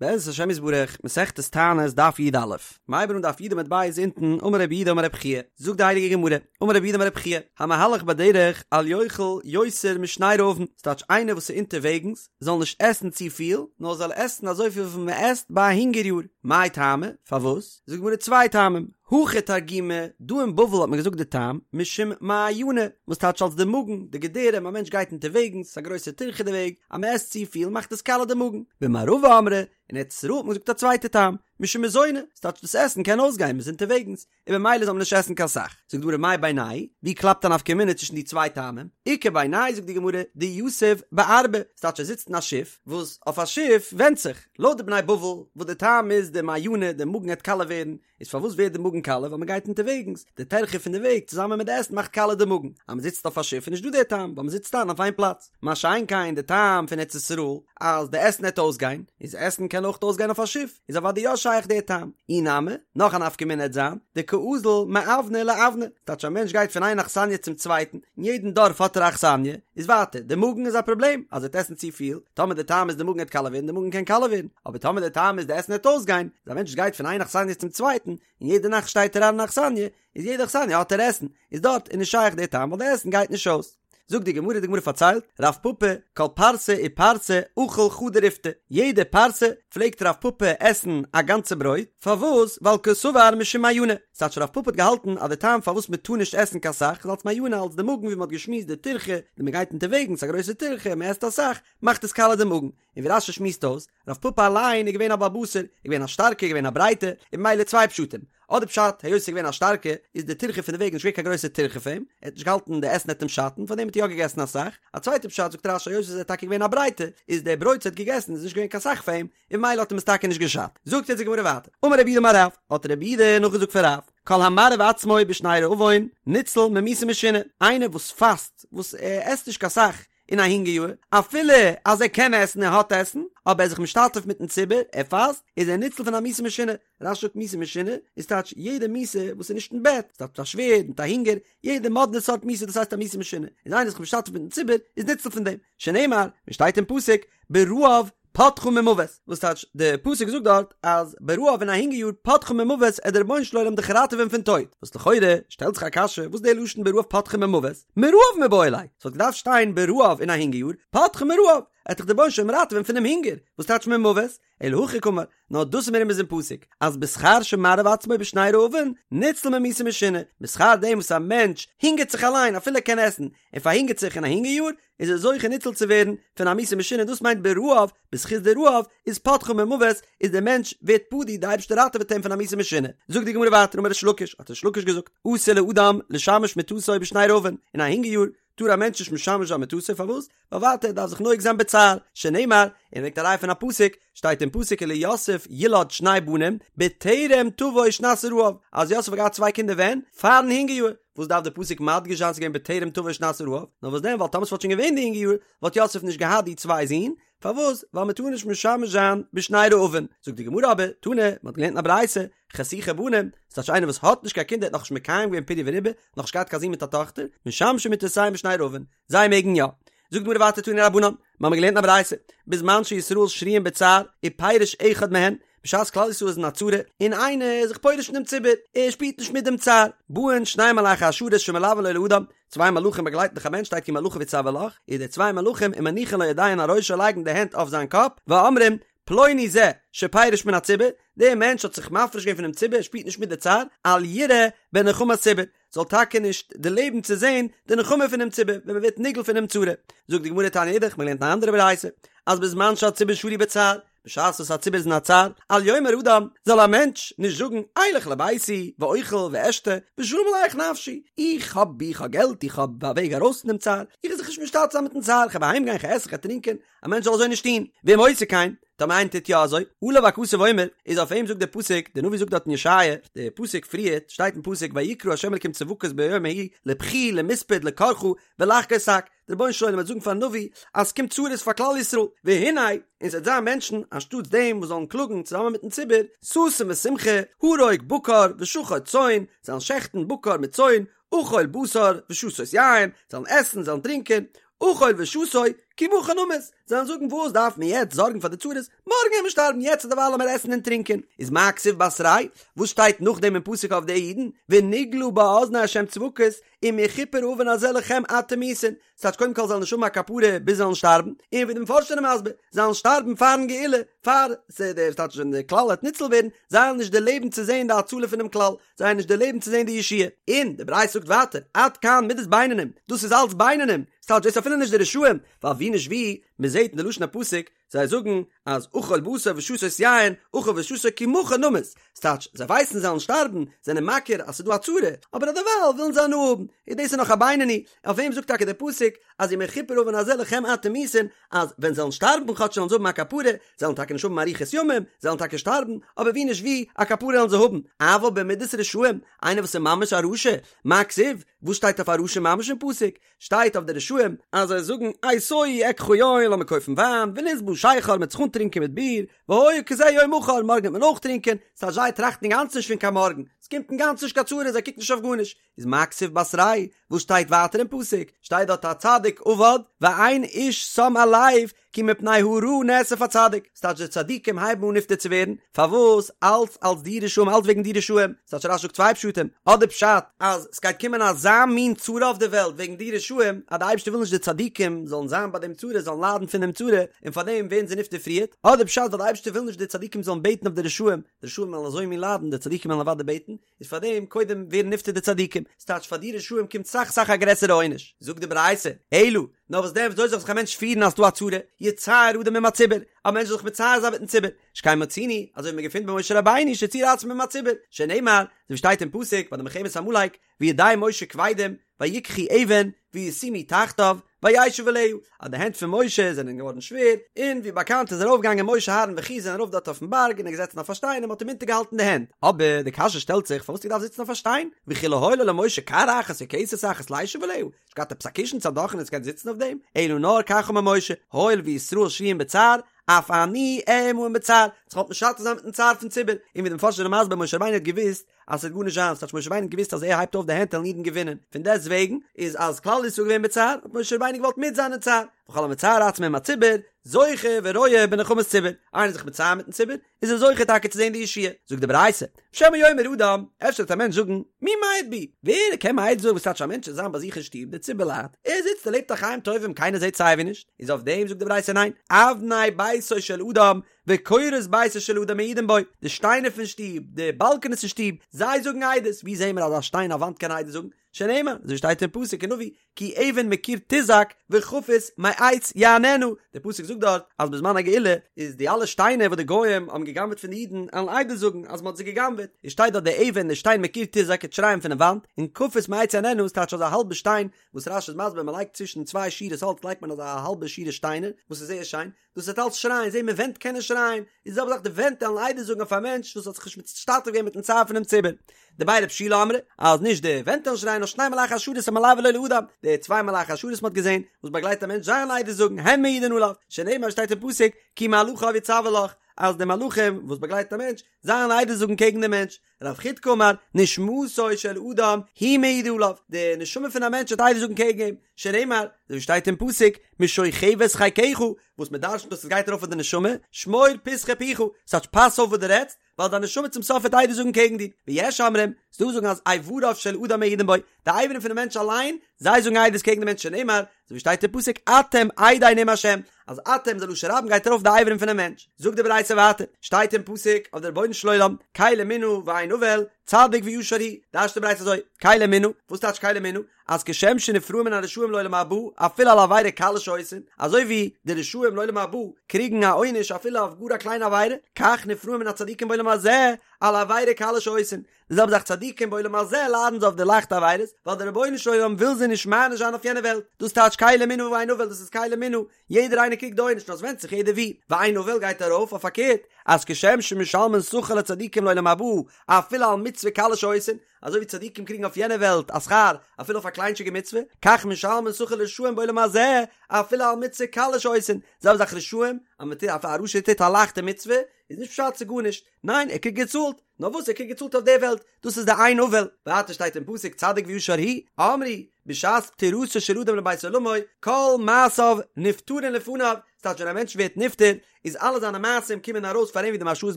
בעזרת השם יתברך, מסכת תענית דף י"א, מ'הייבט אן דף י' עמוד ב' אונטן, אמר רב יהודה אמר רב חייא, זאגט די הייליגע גמרא, אמר רב יהודה אמר רב חייא, המהלך בדרך אל יאכל יותר משני רעבון, ס'טייטש איינער וואס איז אונטערוועגנס זאל נישט עסן צופיל, נאר זאל עסן אזויפיל וויפיל מען עסט ביי א הונגער יאר, מאי טעמא, פארוואס? זאגט די גמרא צוויי טעמים, הכא תרגימו, דא אין בבל האט מען געזאגט די טעם, משום מעיינא, וואס טייטש אלס די מאגן, די געדערים, א מענטש גייט אונטערוועגנס, ס'איז א גרויסע טירחה די וועג, אז מען עסט צופיל מאכט עס קאלע די מאגן. במערבא אמרי, אין ארץ ישראל האט מען געזאגט א צווייטע טעם, משום מזוני, ס'טייטש דאס עסן קען אויסגיין, מען איז אונטערוועגנס, און במילא זאל מען נישט עסן קיין סך. זאגט די גמרא מאי בינייהו, ווי קלאפט א נפקא מינה צווישן די צוויי טעמים? איכא בינייהו זאגט די גמרא, דיתיב בארבא, ס'טייטש ער זיצט אין א שיף, וואס אויף א שיף ווענדט זיך, לויט די בני בבל וואס די טעם איז די מעיינא, די מאגן העט קאלע ווערן, איז פארוואס ווערט די מאגן קאלע ווייל מען גייט אונטערוועגנס, די טרחה פון די וועג צוזאמען מיט די עסן מאכט קאלע די מאגן, אז מען זיצט אויף א שיף איז נישט דא די טעם ווייל מען זיצט איין אויף איין פלאץ, מה שאין כן די טעם פון ארץ ישראל אז די עסן העט אויסגיין, איז עסן קען אויך אויסגיין אויף א שיף, איז אוודאי יא שייך די טעם, אי נמי, נאך א נפקא מינה העט זיין, דקאזיל מאוונא לאוונא, ס'טייטש א מענטש גייט פון איין אכסניא צום צווייטן, אין יעדן דארף האט ער א אכסניא, איז ווייטער, די מאגן איז א פראבלעם, אז ער וועט עסן צופיל, טאמער די טעם איז די מאגן העט קאלע ווערן, די מאגן קען קאלע ווערן, אבער טאמער די טעם איז די עסן העט אויסגיין, איז א מענטש גייט פון איין אכסניא צום צווייטן, און יעדע נאכט שטייט ער איין אין אכסניא, איז יעדע אכסניא האט ער עסן, איז דארט איז נישט שייך די טעם ווייל די עסן גייט נישט אויס. זאגט די גמרא, די גמרא פארציילט, רב פפא, כל פרסה ופרסה אכיל חדא ריפתא, יעדע פרסה פלעגט רב פפא עסן א גאנצע ברויט, פארוואס? ווייל קסבר משום מעיינא, ס'טייטש רב פפא האט געהאלטן אז די טעם פארוואס מען טאר נישט עסן קיין סאך איז אלס מעיינא אלס די מאגן ווי מען האט געשמועסט די טירחה ווען מען גייט אונטערוועגנס א גרויסע טירחה מען עסט אסאך מאכט עס קאלע די מאגן, און ווי רש"י שמועסט אויס, רב פפא אליין איז געווען א בעל בשר, איז געווען א שטארקע איז געווען א ברייטע, און ממילא צוויי פשטים, אדער פשט היות ער איז געווען א שטארקע איז די טירחה פון די וועג נישט געווען קיין גרויסע טירחה פאר אים, ער האט נישט געהאלטן די עסן העט אים שאטן פארדעם האט ער יא געגעסן אסאך, א צווייטע פשט זאגט רש"י היות ער איז טאקע געווען א ברייטע איז די ברויט וואס ער האט געגעסן איז נישט געווען קיין סאך פאר אים, און ממילא האט אים עס טאקע נישט געשאדט. זאגט יעצט די גמרא ווייטער, אמר רב יהודה אמר רב, האט רב יהודה נאכגעזאגט פון רב, כל המרעיב עצמו בשני רעבון ניצל ממיתה משונה, איינער וואס פאסט, וואס ער עסט נישט קיין סאך אין א הונגער יאר, אפילו אז ער קען עסן ער האט עסן, אבער ער איז זיך משתתף מיטן ציבור, ער פאסט, איז ער ניצל פון א מיתה משונה. רש"י זאגט מיתה משונה איז טייטש יעדע מיתה וואס איז נישט אין בעט, ס'טייטש מיט א שווערד, מיט א הונגער, יעדע מאדנע סארט מיתה דאס הייסט א מיתה משונה, איז איינער זיך משתתף מיטן ציבור איז ניצל פון דעם, שנאמר, ווי שטייט אין פסוק, ברעב פדך ממות, וואס טייטש די פסוק זאגט דארט אז ברעב אין א הונגער יאר פדך ממות עט דער רבונו של עולם דיך ראטעווען פון טויט, וואס לכאורה שטעלט זיך א קשיא וואס די לשון ברעב פדך ממות, מרעב מיבעי ליה, ס'וואלט געדארפט שטיין ברעב אין א הונגער יאר פדך מרעב, עט דיך דער רבונו של עולם ראטעווען פונעם הונגער, וואס טייטש ממות, אלא הכי קאמר, נאר דאס איז מרומז אין פסוק, אז בשכר שמרעיב עצמו בשני רעבון, ניצל ממיתה משונה, בשכר דעם וואס א מענטש הונגערט זיך אליין אפילו ער קען עסן, ער פארהונגערט זיך אין א הונגער יאר, איז ער זוכה ניצל צו ווערן פון א מיתה משונה, דאס מיינט ברעב, בזכות די רעב, איז פדך ממות, איז דער מענטש ווערט פדוי, די אייבערשטער ראטעוועט אים פון א מיתה משונה. זאגט די גמרא ווייטער אמר ריש לקיש, האט ריש לקיש געזאגט, אסור לאדם לשמש מטתו בשני רעבון, אין א הונגער יאר טאר א מענטש נישט משמש זיין מטתו, פארוואס? ווייל ווייטער ער דארף זיך נוהג זיין בצער, שנאמר, און ער ברענגט א ראיה פון א פסוק, שטייט אין פסוק וליוסף ילד שני בנים, בטרם תבוא שנת הרעב, אז יוסף האט געהאט צוויי קינדער ווען? פארן הונגער יאר, וואס דארף די פסוק מדגיש זיין ס'איז געווען בטרם תבוא שנת הרעב, נאר וואס דען ווייל טאמער ס'וואלט שוין געווען די הונגער יאר, וואלט יוסף נישט געהאט די צוויי זין, פארוואס? ווייל מען טאר נישט משמש זיין בשני רעבון. זאגט די גמרא אבער, תנא, מען האט געלערנט אין א ברייתא, חשוכי בנים, ס'טייטש איינער וואס האט נישט קיין קינדער האט נאכנישט מקיים געווען פריה ורביה, נאכנישט געהאט קיין זון מיט א טאכטער, משמשין מטותיהן בשני רעבון, זיי מעגן יא. זאגט די גמרא ווייטער תנו רבנן, מיר האבן געלערנט אין א ברייתא, בזמן שישראל שרויין בצער, ופירש אחד מהן, בשעת כלל ישראל איז אין א צרה, און איינער איז זיך פורש פון דעם ציבור, ער שפירט נישט מיט דעם צער, באין שני מלאכי השרת שמלווין לו לאדם, צוויי מלאכים באגלייטן דאך א מענטש שטייט כי מלאכיו יצוה לך, איז די צוויי מלאכים ומניחין לו ידיהן על ראשו לייגן די הענט אויף זיין קאפ, ואומרים, פלוני זה שפירש מן הציבור, דער מענטש האט זיך מפריש געווען פונעם ציבור, ער שפירט נישט מיט די צער, אל יראה בנחמת ציבור, זאל טאקע נישט דערלעבן צו זען די נחמה פונעם ציבור, ווען מען ווערט נגאל פונעם צרה. זאגט די גמרא תניא אידך, מען האט געלערנט אן אנדערע ברייתא, אז בזמן שהציבור שרוי בצער, בשעת וואס א ציבור איז אין א צער, אל יאמר אדם, זאל א מענטש נישט זאגן, אלך לביתי, ואוכל ואשתה, ושלום עליך נפשי, איך האב איך האב געלט, איך האב א וועג ארויס פון דעם צער, איך וועל זיך נישט משתתף זיין מיטן צער, איך וועל אהיים גיין, איך וועל עסן, איך וועל טרינקען, א מענטש זאל אזוי נישט טון, ואם עושה כן, טאמער איינער טוט יא אזוי, עליו הכתוב אומר, איז אויף אים זאגט דער פסוק, דער נביא זאגט דארט אין ישעיה, דער פסוק פריערט, שטייט אין פסוק, ויקרא ה' אלקים צבקות ביום ההוא, לבכי למספד לקרחה, ולחגור שק, דער רבונו של עולם וועט זאגן פארן נביא אז ס'קומט צרות פאר כלל ישראל, והנה, און ס'וועט זיין מענטשן אנשטאטס דעם וואס זאלן קלאגן צוזאמען מיטן ציבור, ששון ושמחה, הרוג בקר ושחט צאן, זאלן שעכטן בקר מיט צאן, אכול בשר ושתות יין, זאלן עסן, זאלן טרינקען. אכול ושתו, כי מחר נמות, זיי וועלן זאגן וואס דארף מען יעצט זארגן פאר די צרות, מארגן וועט מען שטארבן, יעצט דערווייל לאמיר עסן און טרינקען. איז מה כתיב בתריה וואס שטייט נאכדעם אין פסוק אויף די אידן, ונגלה באזני ה' צבקות, אם יכופר העון הזה לכם עד תמותון, ס'טייטש קודם כל זיי וועלן נישט האבן א כפרה ביז זיי וועלן שטארבן, און ווי די מפרשים זענען מסביר, זיי וועלן שטארבן פארן גאולה, פאר ס'טייטש ווען די כלל וועט ניצול ווערן, זיי וועלן נישט דערלעבן צו זען די הצלה פונעם כלל, זיי וועלן נישט דערלעבן צו זען די ישועה. און די ברייתא זאגט ווייטער, עד כאן מידת בינונים, דאס איז אלץ בינונים, ס'טייטש דאס איז אפילו נישט די רשעים, ווייל ווי נישט ווי, מ'זעט אין די לשון הפסוק, זיי זאגן אז אכול בשר ושתות יין, אכול ושתו כי מחר נמות, ס'טייטש, זיי ווייסן זיי וועלן שטארבן, זענען מכיר אז ס'איז דא א צרה, אבער אדערווייל ווילן זיי הנאה האבן, און דאס איז נאך א בינוני, אויף וועם זאגט טאקע דער פסוק אז אם יכופר העון הזה לכם עד תמותון, אז ווען זיי וועלן שטארבן כאטש וועלן זיי האבן א כפרה, זיי וועלן טאקע נישט האבן אריכות ימים, זיי וועלן טאקע שטארבן, אבער ווי נישט ווי, א כפרה וועלן זיי האבן, אבל במידת רשעים, איינער וואס איז ממש א רשע, מה כתיב, וואס שטייט אויף א רשע ממש אין פסוק? שטייט אויף די רשעים אז זיי זאגן אתיו אקחה יין לאמיר קויפן וויין ונשבעה שכר מ'עט זיך אנטרינקען מיט ביר והיה כזה יום מחר מארגן וועט מען אויך טרינקען ס'טייטש זיי טראכטן אינגאנצן נישט פון קיין מארגן ס'קומט אינגאנצן נישט קיין צרה זיי קוקן נישט אויף גארנישט איז מה כתיב בתריה וואס שטייט ווייטער אין פסוק שטייט דארט הצדיק אבד ואין איש שם על לב כי מפני הרעה נאסף הצדיק, ס'טייטש די צדיקים הייבן אן נפטר צו ווערן, פארוואס? אלץ אלץ די רשעים אלץ וועגן די רשעים, ס'טייטש רש"י זאגט צוויי פשטים, אדער פשט אז ס'גייט קומען אזא מין צרה אויף די וועלט וועגן די רשעים, אז די אייבערשטער וויל נישט די צדיקים זאלן זיין ביי דעם צרה, זאלן ליידן פון דעם צרה, און פארדעם ווערן זיי נפטר פריערט, אדער פשט ווייל די אייבערשטער וויל נישט די צדיקים זאלן בעטן אויף די רשעים, די רשעים וועלן אזוי מין ליידן, די צדיקים וועלן אוודאי בעטן, איז פאר דעם קודם ווערן נפטר די צדיקים, ס'טייטש פאר די רשעים קומט סאך סאך א גרעסערע עונש, זאגט די ברייתא, אלא, נאר וואס דען וויאזוי זאל זיך א מענטש פירן אז ס'דא א צרה, יצער אדם עם הציבור, א מענטש זאל זיך מצער זיין מיטן ציבור, שכן מצינו, אזוי ווי מ'געפינט ביי משה רבינו שציער עצמו עם הציבור, שנאמר, אזוי ווי שטייט אין פסוק ביי די מלחמת עמלק, וידי משה כבדים, ויקחו אבן, וישימו תחתיו, וישב עליה, אז די הענט פון משה זענען געווארן שווער, און ווי באקאנט איז ארויפגעגאנגען משה אהרן וחור זענען ארויף דארט אויפן בארג און ער געזעצן אויף א שטיין און מען האט אים אונטערגעהאלטן די הענט, אבער די קשיא שטעלט זיך פארוואס האט ער געדארפט זיצן אויף א שטיין, וכי לא היה לו למשה כר אחת או כסת אחת לישב עליה, נישט געהאט עפעס א קישן צו א דאכענע צו קענען זיצן אויף דעם, אלא נאר כך אמר משה, הואיל וישראל שרויים בצער, אף אני אהיה עמהם בצער, זיך געוואלט משתתף זיין מיטן צער פון ציבור, און ווי די מפרשים זענען מסביר משה רבינו האט געוואוסט אז ס'וועט גארנישט זיין, ס'טייטש משה רבינו האט געוואוסט אז ער הייבט אויף די הענט וועלן אידן געווינען, פון דעסט וועגן איז אז כלל ישראל געווען בצער האט משה רבינו געוואלט מיט זיין אין צער, וכל המצער עצמו עם הציבור, זוכה ורואה בנחמת ציבור, איינער איז זיך מצער מיטן ציבור, איז ער זוכה טאקע צו זען די ישועה, זאגט די ברייתא, שמא יאמר אדם, אפשר וועט א מענטש זאגן, מי מעיד בי, ווער קען מעיד זאגן וואס טייטש א מענטש זאל זיין ביי זיך אין שטוב, די ציבור ליידט, ער זיצט ער לעבט א חיים טובים קיינער זעט סייווי נישט, איז אויף דעם זאגט די ברייתא ניין, אבני ביתו של אדם וקורות ביתו של אדם מעידין בו, די שטיינער פון שטוב, די באלקענעס אין שטוב, זיי זאגן עדות, ווי זעהן מיר אז א שטיין א וואנט קען עדות זאגן? שנאמר, אזוי שטייט אין פסוק אין נביא, כי אבן מקיר תזעק וכפיס מעץ יעננה, דער פסוק זאגט דארט אז בזמן הגאולה איז די אלע שטיינער וואס די גוים האבן גע'גנב'עט פון די אידן עלן עדות זאגן אז מען האט זיי גע'גנב'עט, איז שטייט דארט די אבן די שטיין מקיר תזעק וועט שרייען פונעם וואנט, און כפיס מעץ יעננה איז טייטש אזא האלבע שטיין, וואס רש"י איז מסביר מען לייגט צווישן צוויי שורות האלץ לייגט מען אזא האלבע שורה שטיינער וואס איז זייער שיין, דאס וועט אלץ שרייען, זעהן מיר ווענט קענען שרייען, איז די זעלבע זאך די ווענט וועלן עדות זאגן אויף א מענטש וואס האט זיך נישט משתתף געווען מיטן צער פונעם ציבור. דבי רב שילא אמרי, אז נישט די ווענט וועלן שרייען נאר שני מלאכי השרת המלוין לו לאדם, די צוויי מלאכי השרת מ'האט געזעהן, וואס באגלייט א מענטש זיי וועלן עדות זאגן, הן מעידין עליו, שנאמר שטייט אין פסוק, כי מלאכיו יצוה לך, אז די מלאכים וואס באגלייטן א מענטש, זיי וועלן עדות זאגן קעגן דעם מענטש. רב חידקא אמר, נשמתו של אדם היא מעידה עליו, די נשמה פון א מענטש וועט עדות זאגן קעגן אים, שנאמר, אזוי ווי שטייט אין פסוק, משוכבת חיקך, וואס מען דרש'נט אז עס גייט ארויף אויף די נשמה, שמור פתחי פיך, ס'טייטש פאס אויף וואס דו רעדסט, ווייל דיין נשמה צום סוף וועט עדות זאגן קעגן דיר, ויש אומרים, ס'דא וואס זאגן אז איבריו של אדם מעידין בו, די אברים פונעם מענטש אליין, זיי זאגן עדות קעגן די מענטש שנאמר, אזוי ווי שטייט אין פסוק אתם עדי נאם השם, אז אתם איז א לשון רבים גייט ארויף די אברים פונעם מענטש, זאגט די ברייתא ווייטער, שטייט אין פסוק אויף די רבונו של עולם, קל אמונה ואין עול, צדיק וישר הוא, דרש'ט די ברייתא אזוי, קל אמונה, וואס טייטש קל אמונה? אז כשם שנפרעים מן הרשעים לעולם הבא אפילו על עבירה קלה שעושים, אזוי ווי די רשעים לעולם הבא קריגן א עונש אפילו אויף גאר א קליינע עבירה, כך נפרעים מן הצדיקים בעולם הזה על עבירה קלה שעושים, די זעלבע זאך צדיקים בעולם הזה ליידן זיי אויף די לייכטע עבירות, ווייל דער רבונו של עולם וויל זיי נישט מעניש זיין אויף יענע וועלט, דאס טייטש קל אמונה ואין עול, דאס איז קל אמונה, יעדער איינער קריגט די עונש, נאר עס ווענדט זיך יעדער ווי, ואין עול גייט ארויף אויף פארקערט, אז כשם שמשלמין שכר לצדיקים לעולם הבא אפילו על מצוה קלה שעושים, אזוי ווי צדיקים קריגן אויף יענע וועלט א שכר אפילו אויף א קליינטשיגע מצוה, כך משלמין שכר לרשעים בעולם הזה אפילו על מצוה קלה שעושים, זעלבע זאך רשעים, אז מען טוט, א רשע טוט א לייכטע מצוה, איז נישט פשט ס'איז גארנישט, ניין ער קריגט געצאלט, נאר וואס ער קריגט געצאלט אויף די וועלט, דאס איז די אין עול, ווייטער שטייט אין פסוק צדיק וישר הוא, אמרו, בשעת פטירתו של אדם לבית עולמו, כל מעשיו נפטרין לפניו, ס'טייטש ווען א מענטש ווערט נפטר, איז אלע זיינע מעשים קומען ארויס פאר אים ווי די מהרש"א איז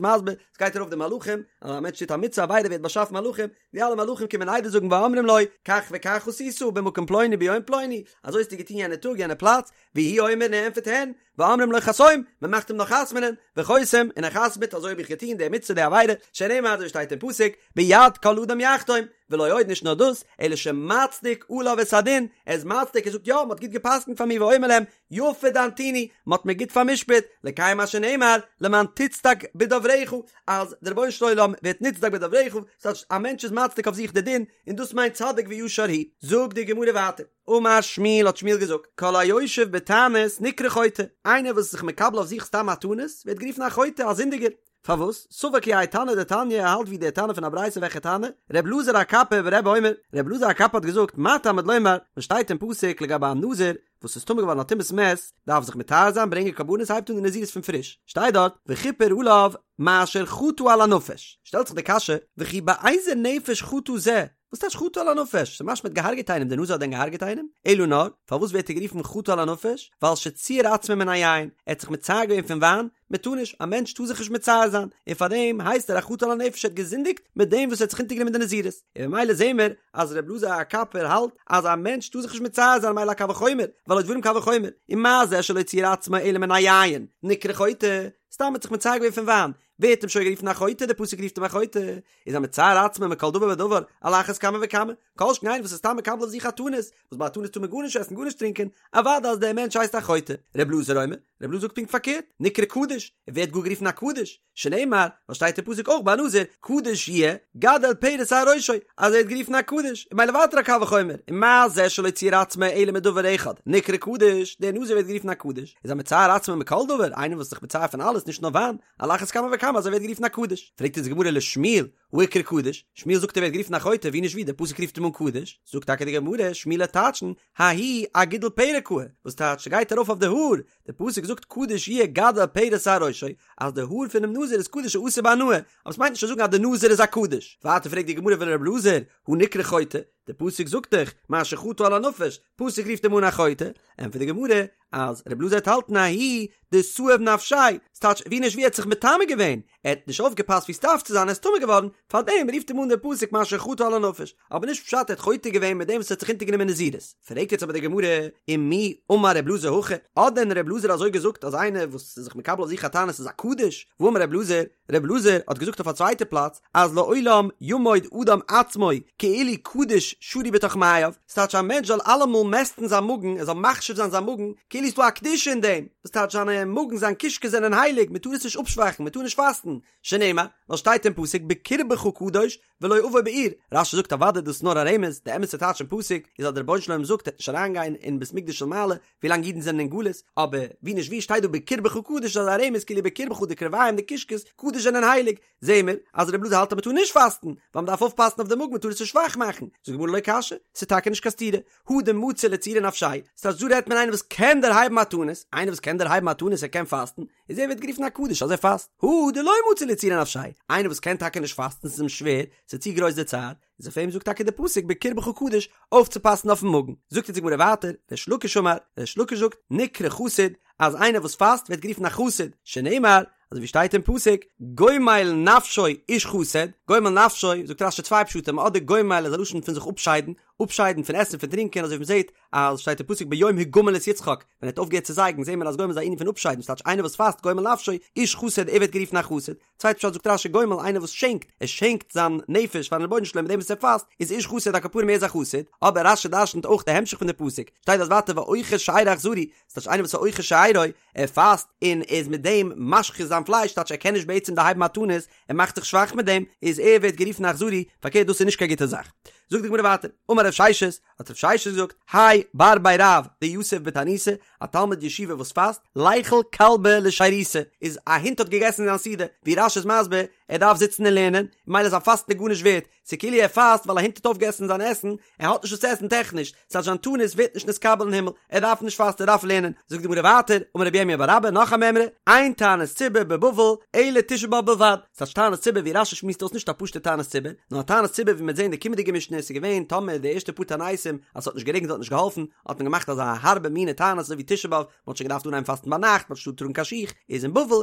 מסביר, ס'גייט ארויף די מלאכים, אז א מענטש טוט א מצוה עבירה ווערט באשאפן מלאכים, די אלע מלאכים קומען עדות זאגן ואומרים לו, כך וכך עשית במקום פלוני ביום פלוני, אזוי האסטו געטון יענע טאג יענע פלאץ, והוא אומר און ער ענטפערט הן, ואומרים לו חתום, מען מאכט אים נאך חתמ'נען, וחותם, און ער חתמ'ט, אזוי האב איך געטון די מצוה די עבירה, שנאמר אזוי שטייט אין פסוק, ביד כל אדם יחתום, ולא עוד נישט נאר דאס, אלא שמצדיק עליו את הדין, ער איז מצדיק ער זאגט יא, מען האט גוט גע'פסק'נט פאר מיר ואומר להם, יפה דנתוני, מען האט מיר גוט פאר'משפט, לקיים מה שנאמר, למען תצדק בדברך, אז דער רבונו של עולם ווערט נצדק בדברך, ס'טייטש א מענטש איז מצדיק אויף זיך די דין, און דאס מיינט צדיק וישר הוא. זאגט די גמרא ווייטער. אמר שמואל האט שמואל געזאגט, כל היושב בתענית נקרא חוטא, איינער וואס איז זיך מקבל אויף זיך סתם א תענית, ווערט גערופן א חוטא, א זינדיגער. פארוואס? סבר כי האי תנא דתניא, ער האלט ווי דער תנא פון א ברייתא וועלכע תנא? ר' אלעזר הקפר ברבי אומר, ר' אלעזר הקפר האט געזאגט, מה תלמוד לומר, וואס שטייט אין פסוק לגבי א נזיר וואס איז טמא געווארן א טומאת מת, דארף זיך מטהר זיין, ברענגען קרבנות, הייבט אן די נזירות פון פריש, שטייט דארט, וכיפר עליו מאשר חטא על הנפש, שטעלט זיך די קשיא, וכי באיזה נפש חטא זה, וואס טייטש חטא על הנפש? ס'איז משמע האט געהארגעט איינעם, דער נזיר האט דען געהארגעט איינעם? אלא נאר, פארוואס ווערט ער גערופן חטא על הנפש? ווייל שציער עצמו מן היין, ער האט זיך מצער געווען פון וויין, מען טאר נישט, א מענטש טאר זיך נישט מצער זיין, און פארדעם הייסט ער א חטא על הנפש, ער האט געזינדיגט מיט דעם וואס ער האט זיך אונטערגענומען די נזירות, און ממילא זעהן מיר אז ר' אלעזר הקפר האלט אז א מענטש טאר זיך נישט מצער זיין ממילא א קל וחומר, והלא דברים קל וחומר, ומה זה שלא ציער עצמו אלא מן היין, נקרא חוטא, סתם האט זיך מצער געווען פון וויין, ווערט אים שוין גערופן א חוטא, דער פסוק רופט אים א חוטא, איז המצער עצמו מכל דבר ודבר, על אחת כמה וכמה, כל שכן איינער וואס איז סתם מקבל אויף זיך א תענית, וואס ביי א תענית טאר מען גארנישט עסן גארנישט טרינקען, אוודאי אז דער מענטש הייסט א חוטא. ר' אלעזר אומר, ר' אלעזר זאגט פונקט פארקערט, נקרא קדוש, ער ווערט גאר גערופן א קדוש, שנאמר, ווייל שטייט אין פסוק אויך ביי נזיר, קדוש יהיה, גדל פרע שער ראשו, אז ער ווערט גערופן א קדוש, און ממילא ווייטער א קל וחומר, ומה זה שלא ציער עצמו אלא מדבר אחד, נקרא קדוש, דער נזיר ווערט גערופן א קדוש, איז המצער עצמו מכל דבר, איינער וואס איז זיך מצער פון אלעס נישט נאר וויין, על אחת כמה וכמה אז ער ווערט גערופן א קדוש. פרעגט אונז די גמרא לשמואל, הא איקרי קדוש, שמואל זאגט ער ווערט גערופן א חוטא, ווי נישט ווי, דער פסוק רופט אים אן קדוש, זאגט טאקע די גמרא, שמואל וועט טייטשן, ההוא אגידול פרע קאי, וואס טייטש ס'גייט ארויף אויף די האר, דער פסוק זאגט קדוש יהיה גדל פרע שער ראשו, אז די האר פונעם נזיר איז קדוש אסור בהנאה, אבער ס'מיינט נישט צו זאגן אז די נזיר איז א קדוש. ווייטער פרעגט די גמרא ולר' אלעזר, הא נקרא חוטא, דער פסוק זאגט דאך, מאשר חטא על הנפש, פסוק רופט אים אן א חוטא, ענטפערט די גמרא, אז ר' אלעזר וועט האלטן ההוא דסאיב נפשיה, ס'טייטש ווי נישט ווי ער האט זיך מטמא געווען, ער האט נישט אויפגעפאסט ווי ס'דארף צו זיין ער איז טמא געווארן, פארדעם רופט אים אן דער פסוק מאשר חטא על הנפש, אבער נישט פשט ער האט חוטא געווען מיט דעם וואס ער האט זיך אונטערגענומען נזירות. פרעגט יעצט אבער די גמרא, ומי אמר ר' אלעזר הכי, האט דען ר' אלעזר אזוי געזאגט אז איינער וואס איז זיך מקבל אויף זיך א תענית איז א קדוש, והאמר ר' אלעזר, ר' אלעזר האט געזאגט אויף א צווייטע פלאץ אז לעולם ימוד אדם עצמו כאילו קדוש שרוי בתוך מעיו, ס'טייטש א מענטש זאל אלעמאל מעסטן זיין מאגן, ער זאל מחשיב זיין זיין מאגן, כאילו ס'דא א קדושה אין דעם, וואס טייטש זיינע מאגן זיין קישקעס זענען הייליג, מ'טאר עס נישט אפשוואכן, מ'טאר נישט פאסטן, שנאמר, ווייל שטייט אין פסוק בקרבך קדוש ולא אבוא בעיר, רש"י זאגט אוודאי דאס איז נאר א רמז, די אמת'ע טייטש אין פסוק איז אז דער רבונו של עולם זאגט ער וועט נישט אריינגיין אין בית מקדש של מעלה ווילאנג אידן זענען אין גלות, אבער ווי נישט ווי שטייט דא בקרבך קדוש איז א רמז כאילו בקרבך די קרביים די קישקעס קדוש זענען הייליג, זעהן מיר אז רבי אלעזר האלט אז מען טאר נישט פאסטן, ווייל מען דארף אויפפאסן אויף די מאגן מען טאר עס נישט שוואך מאכן, זאגט די גמרא לא קשיא, ס'איז טאקע נישט קיין סתירה, הא דמצי לצעורי נפשיה, ס'טייטש דא רעדט מען איינער וואס קען דערהייבן א תענית, איינער וואס קען דערהייבן א תענית ער קען פאסטן, איז ער ווערט גערופן א קדוש אז ער פאסט, הא דלא מצי לצעורי נפשיה, איינער וואס קען טאקע נישט פאסטן ס'איז אים שווער, ס'איז צו גרויס די צער, איז אויף אים זאגט טאקע די פסוק בקרבך קדוש אויפצופאסן אויפן מאגן, זאגט אונז די גמרא ווייטער, ריש לקיש אמר, ריש לקיש זאגט, נקרא חסיד, אז איינער וואס פאסט ווערט גערופן א חסיד, שנאמר, אזוי ווי שטייט אין פסוק, גומל נפשו איש חסד, גומל נפשו, זאגט רש"י צוויי פשטים, אדער גומל איז א לשון פון זיך אפשיידן, אפשיידן פון עסן פון טרינקען, אזוי ווי מ'זעט אז שטייט אין פסוק ביום הגמל את יצחק, ווען ער האט אויפגעהערט צו זייגן, זעהן מיר אז גומל איז א ענין פון אפשיידן, ס'טייטש איינער וואס פאסט גומל נפשו, איש חסד, ער ווערט גערופן א חסיד, צווייטע פשט זאגט רש"י גומל איינער וואס שענקט, ער שענקט זיין נפש פארן רבונו של עולם מיט דעם וואס ער פאסט, איז איש חסד על כל פנים ער איז א חסיד, אבער רש"י דרשנ'ט אויך די המשך פון די פסוק, שטייט דארט ווייטער ואוכל שארו אכזרי, ס'טייטש איינער וואס איז אוכל שארו, ער פאסט און איז מיט דעם משחית זיין פלייש, טייטש ער קען נישט בעצם דערהייבן א תענית, ער מאכט זיך שוואך מיט דעם, איז ער ווערט גערופן אכזרי, פארקערט דאס איז נישט קיין גוטע זאך. זאגט די גמרא ווייטער, אמר רב ששת, האט רב ששת געזאגט, האי בר בי רב דיתיב בתעניתא, א תלמיד ישיבה וואס פאסט, ליכול כלבא לשירותא, איז א הונט האט געגעסן זיין סעודה, ווי רש"י איז מסביר, ער ער דארף זיצן און לערנען, ממילא זיין פאסטן איז גארנישט ווערט, ס'איז כאילו ער פאסט ווייל א הונט האט אויפגעגעסן זיין עסן, ער האט נישט וואס צו עסן טעכניש, ס'הייסט זיין תענית ווערט נישט נתקבל אין הימל, ער דארף נישט פאסטן ער דארף לערנען, זאגט די גמרא ווייטער, אמר רבי ירמיה בר אבא נאך א מימרא, אין תענית ציבור בבבל אלא תשעה באב בלבד, ס'טייטש תענית ציבור ווי רש"י שמועסט אויס נישט א פשוטע תענית ציבור, נאר א תענית ציבור ווי מ'וועט זען אין די קומענדיגע משנה איז געווען טאמער די ערשטע פאר תעניתים אז ס'האט נישט גערעגנט האט נישט געהאלפן, האט מען געמאכט אזא הארבע מינע תענית אזוי ווי תשעה באב, מ'האט שוין געדארפט אנהייבן פאסטן ביינאכט, מ'האט נישט געטארט טראגן קיין שיך, איז אין בבל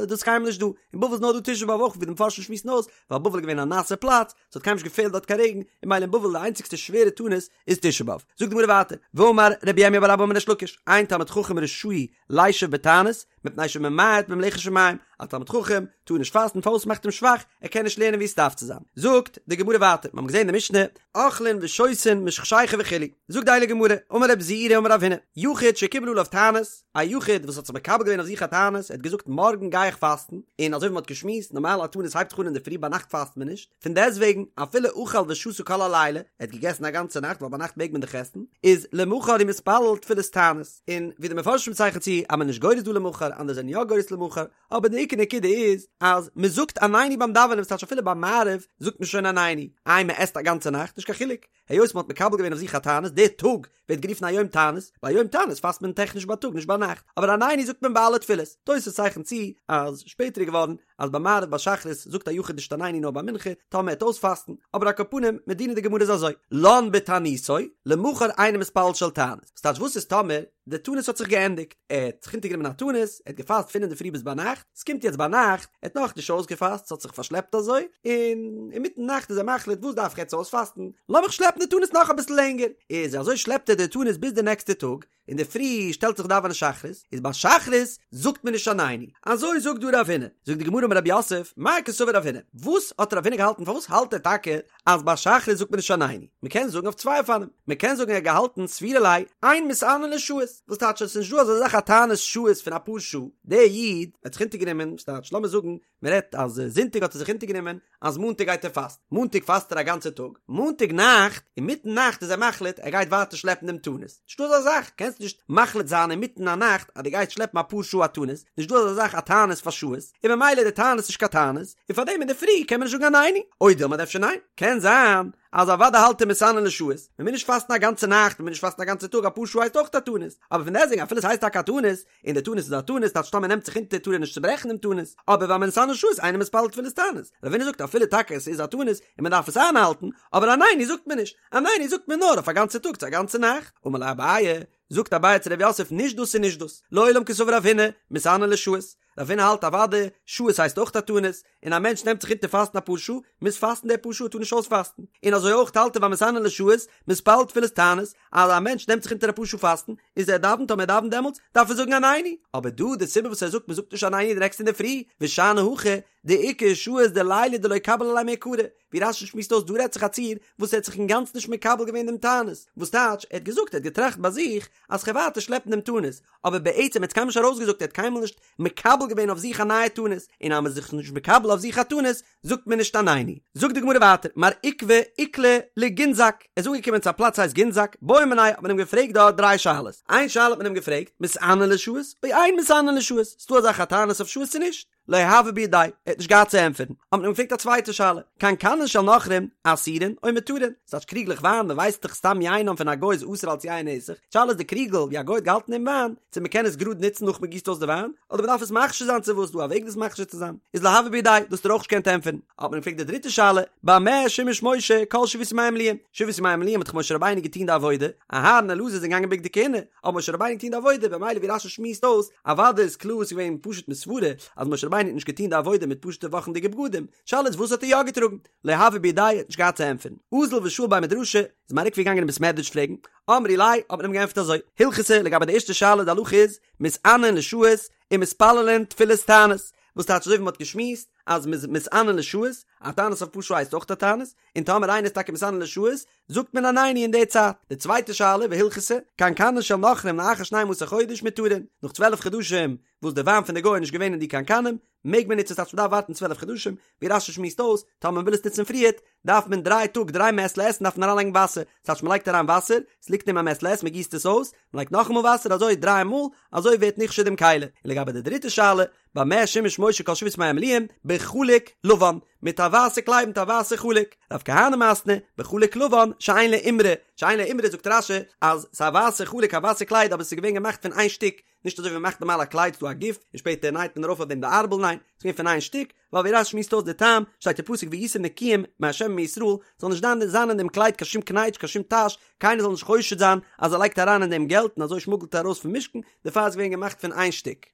איז דאס קיינמאל נישט דא, אין בבל איז נאר דא תשעה באב אויך ווי די מפרשים שמועסן אויס, ווייל בבל איז געווען א נאסע פלאץ, ס'האט קיינמאל נישט געפעלט דארט קיין רעגן, און ממילא אין בבל די איינציגסטע שווערע תענית איז תשעה באב. זאגט די גמרא ווייטער, ואמר רבי ירמיה בר אבא אמר ריש לקיש, אין תלמיד חכם רשאי לישב בתענית, מפני שממעט במלאכת שמים, א תלמיד חכם טאר נישט פאסטן פארוואס ס'מאכט אים שוואך, ער קען נישט לערנען ווי עס דארף צו זיין. זאגט די גמרא ווייטער, מיר האבן געזען אין די משנה, אוכלין ושותין משחשיכה וכו', זאגט די הייליגע גמרא, אמר רב זעירא אמר רב הונא, יחיד שקיבל עליו תענית, א יחיד וואס האט זיך מקבל געווען אויף זיך א תענית, ער האט געזאגט מארגן גיי איך פאסטן, און אזוי ווי מען האט געשמועסט, נארמאל א תענית הייבט זיך אן אינדערפרי ביינאכט פאסט מען נישט, פון דעסטוועגן אפילו אכל ושתה כל הלילה, ער האט געגעסן א גאנצע נאכט ווייל ביינאכט מעג מען דאך עסן, איז למחר הוא מתפלל תפילת תענית, און ווי די מפרשים צייכן צו אז מען איז נישט גורס דא למחר, אנדערע זענען יא גורס למחר, אבער די עיקר נקודה איז אז מען זאגט עננו ביים דאווענען, ס'טייטש אפילו ביי מעריב זאגט מען שוין עננו, איי מען עסט א גאנצע נאכט, נישט קיין חילוק, היות מען האט מקבל געווען אויף זיך א תענית, דער טאג ווערט גערופן א יום תענית, ביי יום תענית פאסט מען טעכניש בייטאג נישט ביינאכט, אבער עננו זאגט מען ביי אלע תפילות, תוס' צייכנט צו אז שפעטער איז געווארן אז ביי מעריב ביי שחרית זאגט א יחיד נישט עננו נאר ביי מנחה, טאמער ער וועט אויספאסטן, אבער על כל פנים מדינא דגמרא איז אזוי, לן בתעניתו, למחר אינו מתפלל של תענית, ס'טייטש וואס איז טאמער די תענית האט זיך געענדיגט, ער האט זיך אונטערגענומען א תענית, ער האט געפאסט פון אינדערפרי ביז ביינאכט, ס'קומט יעצט ביינאכט, ער האט נאכנישט אויסגעפאסט, ס'האט זיך פארשלעפט אזוי, און אינמיטן נאכט איז ער מחליט וואס דארף איך יעצט אויספאסטן, לאמיך שלעפן די תענית נאך אביסל לענגער, איז אזוי שלעפט ער די תענית ביז די נעקסטע טאג, אינדערפרי שטעלט זיך דאווענען שחרית, איז ביי שחרית זאגט מען נישט עננו, אזוי זאגט דא רב הונא, זאגט די גמרא אמר רב יוסף, מאי קסבר רב הונא, וואס האט רב הונא געהאלטן פארוואס האלט ער טאקע אז ביי שחרית זאגט מען נישט עננו, מען קען זאגן אויף צוויי אופנים, מען קען זאגן ער האט געהאלטן סבירא ליה אין מתענין לשעות, וואס טייטש עס איז נישט דא אזא זאך א תענית שעות פון אפאר שעה, דער איד האט זיך אונטערגענומען, וואס טייטש לאמיר זאגן מען רעדט אז זונטאג האט ער זיך אונטערגענומען אז מאנטאג גייט ער פאסטן, מאנטאג פאסט ער א גאנצע טאג, מאנטאג נאכט אינמיטן נאכט איז ער מחליט ער גייט ווייטער שלעפן דעם תענית, נישטא אזא זאך, קענסט נישט מחליט זיין אינמיטן א נאכט אז דו גייסט שלעפן אפאר שעה א תענית, נישט דא אזא זאך א תענית פאר שעות, און ממילא די תענית איז נישט קיין תענית, און פארדעם אינדערפרי קען מען נישט זאגן עננו, או דילמא אדער אפשר ניין, קען זיין אז אוודאי האלט ער מתענין לשעות, מען מוז נישט פאסטן א גאנצע נאכט, מען מוז נישט פאסטן א גאנצע טאג, אפאר שעה הייסט אויך א תענית, אבער פון דעסטוועגן אפילו עס הייסט טאקע א תענית, און די תענית איז א תענית, טייטש טאמער נעמט זיך אונטער טאר ער נישט צוברעכן דעם תענית, אבער והמתענה לשעות אינו מתפלל תפילת תענית, רב הונא זאגט אפילו טאקע עס איז א תענית און מען דארף עס איינהאלטן, אבער עננו זאגט מען נישט, עננו זאגט מען נאר אויף א גאנצע טאג צו א גאנצע נאכט. אמר ליה אביי, זאגט אביי צו רב יוסף נישט דאס און נישט דאס, לעולם קסבר רב הונא, מתענין לשעות, רב הונא האלט אוודאי, שעות הייסט אויך א תענית, און א מענטש נעמט זיך אונטער פאסטן אפאר שעה, מוז פאסטן די פאר שעה, טאר נישט אויספאסטן, און אזוי אויך האלט ער והמתענה לשעות, מתפלל תפילת תענית, אז א מענטש נעמט זיך אונטער אפאר שעה פאסטן, איז ער דאווענט אויב ער דאווענט דעמאלטס, דארף ער זאגן עננו, אבער דא די סיבה וואס ער זאגט מען זאגט נישט עננו די נעקסטע אינדערפרי, ושאני הכא, דאיכא שעות דליליא דלא קביל עליה מעיקרא, ווי רש"י שמועסט אויס דא רעדט זיך א ציור וואס ער האט זיך אינגאנצן נישט מקבל געווען דעם תענית, וואס טייטש ער האט געזאגט ער האט געטראכט ביי זיך אז כ'וועל ווייטער שלעפן דעם תענית, אבער בעצם ער האט עס קיינמאל נישט ארויסגעזאגט ער האט קיינמאל נישט מקבל געווען אויף זיך א נייע תענית, און אז מען איז זיך נישט מקבל אויף זיך א תענית זאגט מען נישט עננו. זאגט די גמרא ווייטער, מר עוקבא איקלע לגינזק, ער איז אנגעקומען צו א פלאץ הייסט גינזק, בעו מיניה האט מען אים געפרעגט דארט דריי שאלות, איין שאלה האט מען אים געפרעגט, מתענין לשעות או אין מתענין לשעות, ס'דא אזא זאך א תענית אויף שעות צו נישט? לא הוה בידיה, ער האט נישט געהאט צו ענטפערן, האט מען אים געפרעגט א צווייטע שאלה, קנקנין של נכרים, אסורין או מותרין, ס'טייטש קריגלעך וויין, מען ווייסט דאך סתם יינם פון א גוי איז אסור אלס יין נסך, שאלה איז די קריגל ווי א גוי האט געהאלטן דעם וויין, צו מען קען עס גראד נוצן נאך מען גיסט אויס די וויין, אדער מען דארף עס מכשיר זיין צו וואס דא א וועג דאס מכשיר צו זיין, איז לא הוה בידיה, דאס האט ער אויך נישט געקענט ענטפערן, האט מען אים געפרעגט די דריטע שאלה, במה שימש משה כל שבעת ימי המילואים, שבעת ימי המילואים האט דאך משה רבינו געטון די עבודה, אהרן און אלעזר זענען געגאנגען בגדי כהונה, האט משה רבינו געטון די עבודה, במילא ווי רש"י שמועסט אויס, אוודאי איז קלאר ס'איז געווען פשוט מסברה אז משה רבינו האט נישט געטון די עבודה מיט פשוטע וואכנדיגע בגדים, שאלה איז וואס האט ער יא געטראגן? לא הוה בידיה האט נישט געהאט צו ענטפערן. אזל ושאיל בי מדרשא, איז מר עוקבא געגאנגען אין בית מדרש פרעגן, אמרו ליה, האט מען אים געענטפערט אזוי, הלכתא לגבי די ערשטע שאלה די הלכה איז, מתענין לשעות ומתפללין תפילת תענית, וואס טייטש אזוי ווי מ'האט געשמועסט אז מ'איז מתענין לשעות, א תענית אויף פאר שעה הייסט אויך א תענית, און טאמער איינער איז טאקע מתענה לשעות, זאגט מען עננו אין די צייט. די צווייטע שאלה, והלכתא, קנקנין של נכרים לאחר שנים עשר חודש מותרין, נאך צוועלף חדשים וואס די וויין פון די גוי איז נישט געווען אין די קנקנים, מעג מען נוצן ס'טייטש מ'דארף ווארטן צוועלף חדשים, ווי רש"י שמועסט אויס, טאמער מ'וויל עס נוצן פריערט, דארף מען דריי טאג דריי מעת לעת דארף מען אריינלייגן וואסער, ס'טייטש מ'לייגט אריין וואסער, ס'ליגט אין א מעת לעת מ'גיסט עס אויס, מ'לייגט נאכאמאל וואסער אזוי דריי מאל, אזוי ווערט נכשר דעם כלי. און לגבי די דריטע שאלה, במה שימש משה כל שבעת ימי המילואים? בחלוק לבן, מיט א ווייסע קלייד מיט א ווייסע חלוק. רב כהנא מתני, בחלוק לבן, שאין לו אימרא, שאין לו אימרא זאגט רש"י אז ס'איז א ווייסע חלוק א ווייסע קלייד אבער ס'איז געווען געמאכט פון איין שטיק, נישט אזוי ווי מ'מאכט נארמאל א קלייד ס'דא א גוף און שפעטער נייט מען ארויף אויף דעם די ארבל ניין, ס'איז געווען פון איין שטיק, ווייל ווי רש"י שמועסט אויס די טעם, שטייט אין פסוק והייתם נקיים מה' ומישראל, זאל נישט זיין זיין אין דעם קלייד קיין שום קנייטש קיין שום טאש, קיינער זאל נישט חושד זיין אז ער לייגט אריין אין דעם געלט און אזוי שמוגלט ער ארויס פון משכן, דערפאר איז געווען געמאכט פון איין שטיק.